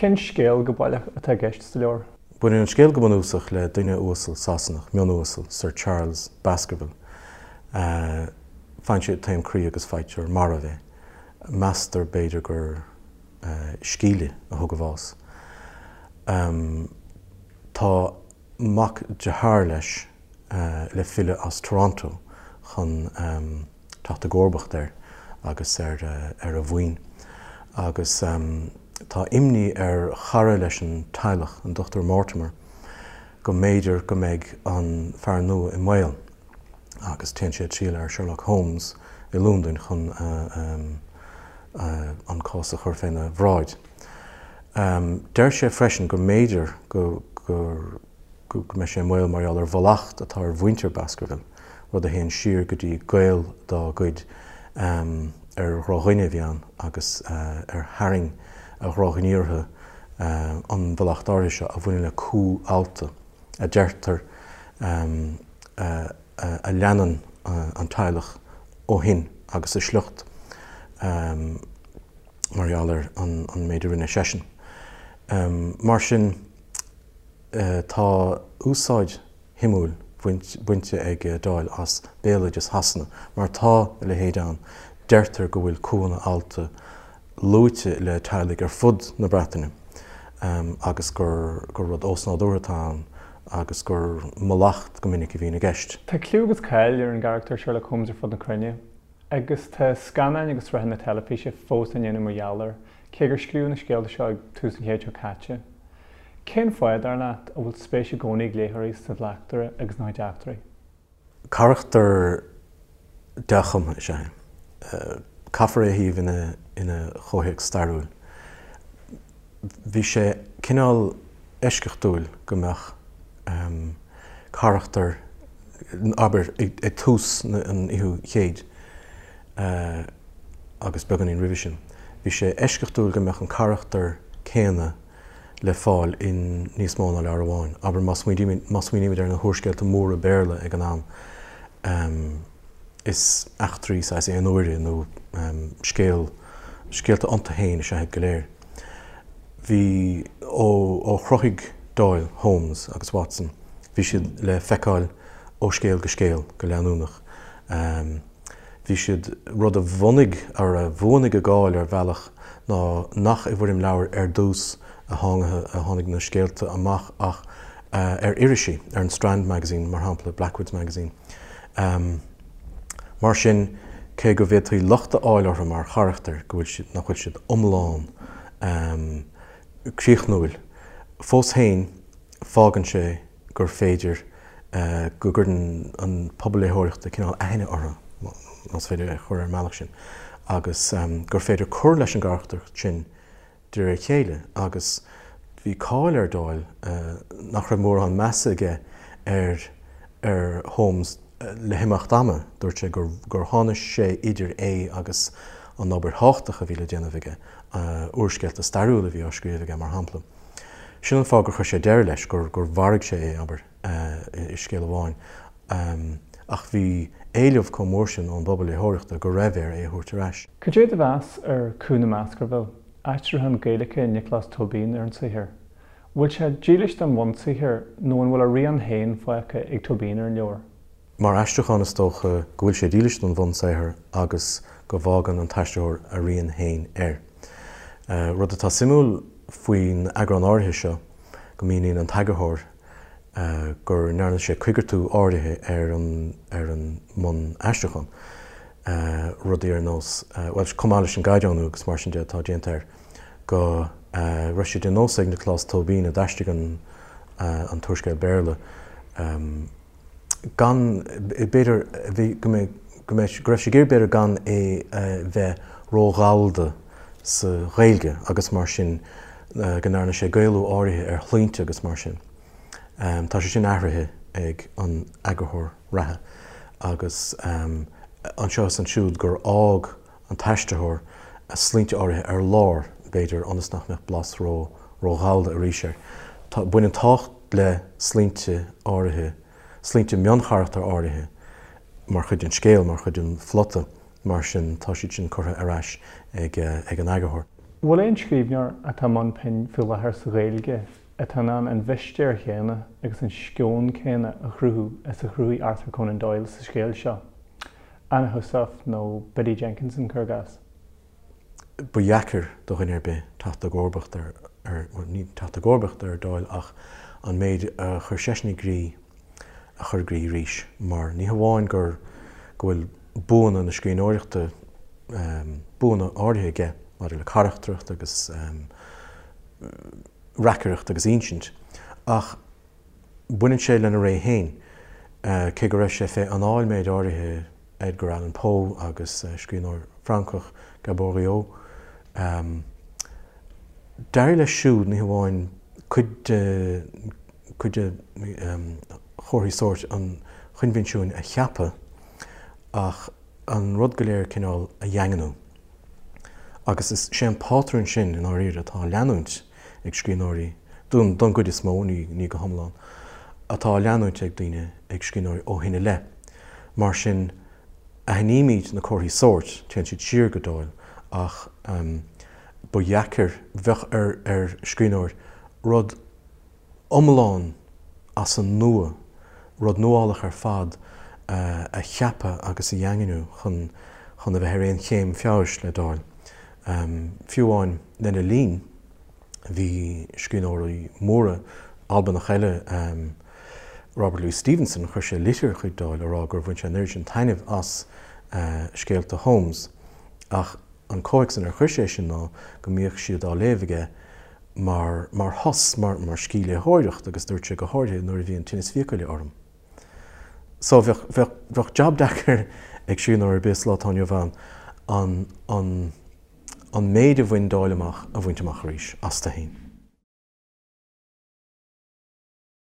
Cén scéal go baileach atá i gceist sa leabhar? Baineann an scéal go bunúsach le duine uasal Sasanach, mionuasal, Sir Charles Baskerville. Faigheann sé taom croí agus faightear marbh é. Meastar, b'fhéidir, gur scíle a thug a bhás. Tá mac dearthár leis le filleadh as Toronto chun teacht i gcomharbacht air agus ar ar a mhaoin. Agus tá imní ar chara leis an teaghlach, an Dr Mortimer, go mb'fhéidir go mbeidh an fear nua i mbaol agus téann sé ag triall ar Sherlock Holmes i Londain chun an cás a chur féna bhráid. Deir sé freisin go mb'fhéidir go go mbeidh sé i mbaol mar gheall ar mhallacht atá ar mhuintir Baskerville, rud a théann siar go dtí gaol dá gcuid ar dhrochdhuine a bhí ann agus ar tharraing a dhrochghníomhartha an mhallacht áirithe seo a bhaineann le cú allta, a deirtear, a leanann an teaghlach ó shin agus a sliocht mar gheall ar an méid a rinne seisean. Mar sin, tá úsáid shuimiúil bainte ag Doyle as béaloideas Shasana, mar tá a leithéid ann. Deirtear go bhfuil cúnna allta luaite le teaghlaigh ar fud na Breataine agus gur rud ósnádúrtha atá ann agus gur mallacht go minic a bhíonn i gceist. Tá cliú agus cáil ar an gcarachtar Sherlock Holmes ar fud na cruinne, agus tá scannáin agus sraitheanna teilifíse fós á ndéanamh mar gheall air, cé gur scríobhadh na scéalta seo ag tús an chéid seo caite. Cén fáth, dar leat, a bhfuil spéis i gcónaí ag léitheoirí sa bhleachtaire agus ina chuid eachtraí? Carachtar dea-chumtha is ea é. Caithfear é a shuíomh ina chomhthéacs stairiúil. Bhí sé cineál eisceachtúil go mbeadh carachtar, abair, ag tús an fhichiú chéid agus beagáinín roimhe sin, bhí sé eisceachtúil go mbeadh an carachtar céanna le fáil in níos mó ná leabhar amháin. Abair, má smaoinímid ar na húrscéalta móra Béarla ag an am, is eachtraí saghas aon uaire nó scéal, scéalta iontu féin is ea iad go léir. Bhí, ó chruthaigh Doyle Holmes agus Watson, bhí siad le feiceáil ó scéal go scéal go leanúnach. Bhí siad, rud a bhunaigh, ar a bhuanaigh a gcáil ar bhealach ná nach i bhfoirm leabhair ar dtús a tháinig na scéalta amach ach ar irisí, ar an Strand Magazine mar shampla, Blackwood's Magazine. Mar sin, cé go bhféadfaí locht a fháil orthu mar charachtair, go bhfuil siad, nach bhfuil siad iomlán críochnúil, fós féin fágann sé gur féidir go gcuireann an pobal léitheoireachta cineál aithne orthu, más féidir é a chur ar an mbealach sin, agus gur féidir cur leis an gcarachtracht sin de réir a chéile. Agus bhí cáil ar Doyle nach raibh mórán measa aige ar ar Holmes le himeacht ama, dúirt sé gur gur tháinig sé idir é agus an obair thábhachtach a bhí le déanamh aige, úrscéalta stairiúla a bhí á scríobh aige, mar shampla. Sin an fáth gur chuir sé deireadh leis, gur gur mharaigh sé é, abair, i scéal amháin. Ach bhí éileamh chomh mór sin ón bpobal léitheoireachta go raibh air é a thabhairt ar ais. Cad é do mheas ar Cú na mBaskerville, aistriúchán Gaeilge Nioclás Tóibín ar an saothar? Bhfuil sé dílis don bhunsaothar nó an bhfuil a rian féin fágtha ag Tóibín ar an leabhar? Mar aistriúchán is dócha go bhfuil sé dílis don bhunsaothar agus go bhfágann an t-aistritheoir a rian féin air. Rud atá suimiúil faoin eagrán áirithe seo go míníonn an t-eagarthóir go ndearna sé coigeartú áirithe ar an ar an mbun-aistriúchán, rudaí ar nós, bhuel, chomh maith leis an gcaighdeánú agus mar sin de atá déanta air, go raibh sé de nós ag Nioclás Tóibín a d'aistrigh an an t-úrscéal Béarla, gan, b'fhéidir, bhí, go mbeidh, go mbeidh, go raibh sé ag iarraidh b'fhéidir gan é a bheith ró-ghallda sa Ghaeilge agus mar sin go ndearna sé Gaelú áirithe ar shloinnte agus mar sin. Tá sé sin athraithe ag an eagarthóir reatha agus anseo is ansiúd gur fhág an t-aistritheoir sloinnte áirithe ar lár, b'fhéidir, ionas nach mbeadh blas ró, ró-ghallda arís air. Tá, baineann tábhacht le sloinnte áirithe, sloinnte mioncharachtar áirithe mar chuid den scéal, mar chuid den phlota, mar sin tá siad sin curtha ar ais ag, ag an eagarthóir. Bhfuil aon scríbhneoir atá i mbun pinn faoi láthair sa Ghaeilge atá in ann an mhistéir chéanna agus an sceon céanna a chruthú is a chruthaigh Arthur Conan Doyle sa scéal seo? Anna Heussaff nó Biddy Jenkinson, cuir i gcás? Ba dheacair do dhuine ar bith teacht i gcomharbacht ar, bhuel, ní teacht i gcomharbacht ar Doyle ach an méid a chuir seisean i gcrích a chur i gcrích arís mar ní hamháin gur, go bhfuil buanna na scríbhneoireachta, buanna áirithe aige maidir le carachtracht agus reacaireacht agus insint, ach baineann sé lena ré féin, cé go raibh sé fé anáil méid áirithe Edgar Allan Poe agus scríbhneoir Francach, Gaboriau. D'éirigh leis siúd ní hamháin cuid de cuid de chomharthaí sóirt an choinbhinsiúin a cheapadh ach an rud go léir cineál a dhaingniú. Agus is é an pátrún sin, i ndáiríre, atá á leanúint ag scríbhneoirí, don gcuid is mó, ní go hiomlán, atá á leanúint ag daoine, ag scríbhneoirí ó shin i leith. Mar sin, aithnímid na comharthaí sóirt, téann siad siar go Doyle, ach ba dheacair, bheadh ar scríbhneoir rud iomlán as an nua, rud nuálach ar fad a cheapadh agus a dhaingniú chun chun a bheith ar aon chéim feabhais le Doyle. Fiú amháin lena linn, bhí scríbhneoirí móra Albanach eile, Robert Louis Stevenson, chuir sé litir chuig Doyle a rá gur bhain sé an oiread sin taitnimh as scéalta Holmes ach an comhthéacs inar chuir sé sin ná go mbíodh siad á léamh aige mar, mar shos, mar, mar scíthléitheoireacht agus dúirt sé go háirithe nuair a bhí an tinneas fiacaile orm. So bheadh, bheadh, bheadh jab deacair ag scríbhneoir ar bith sa lá atá inniu ann an, an, an méid a bhain Doyle amach a bhaint amach arís, astu féin.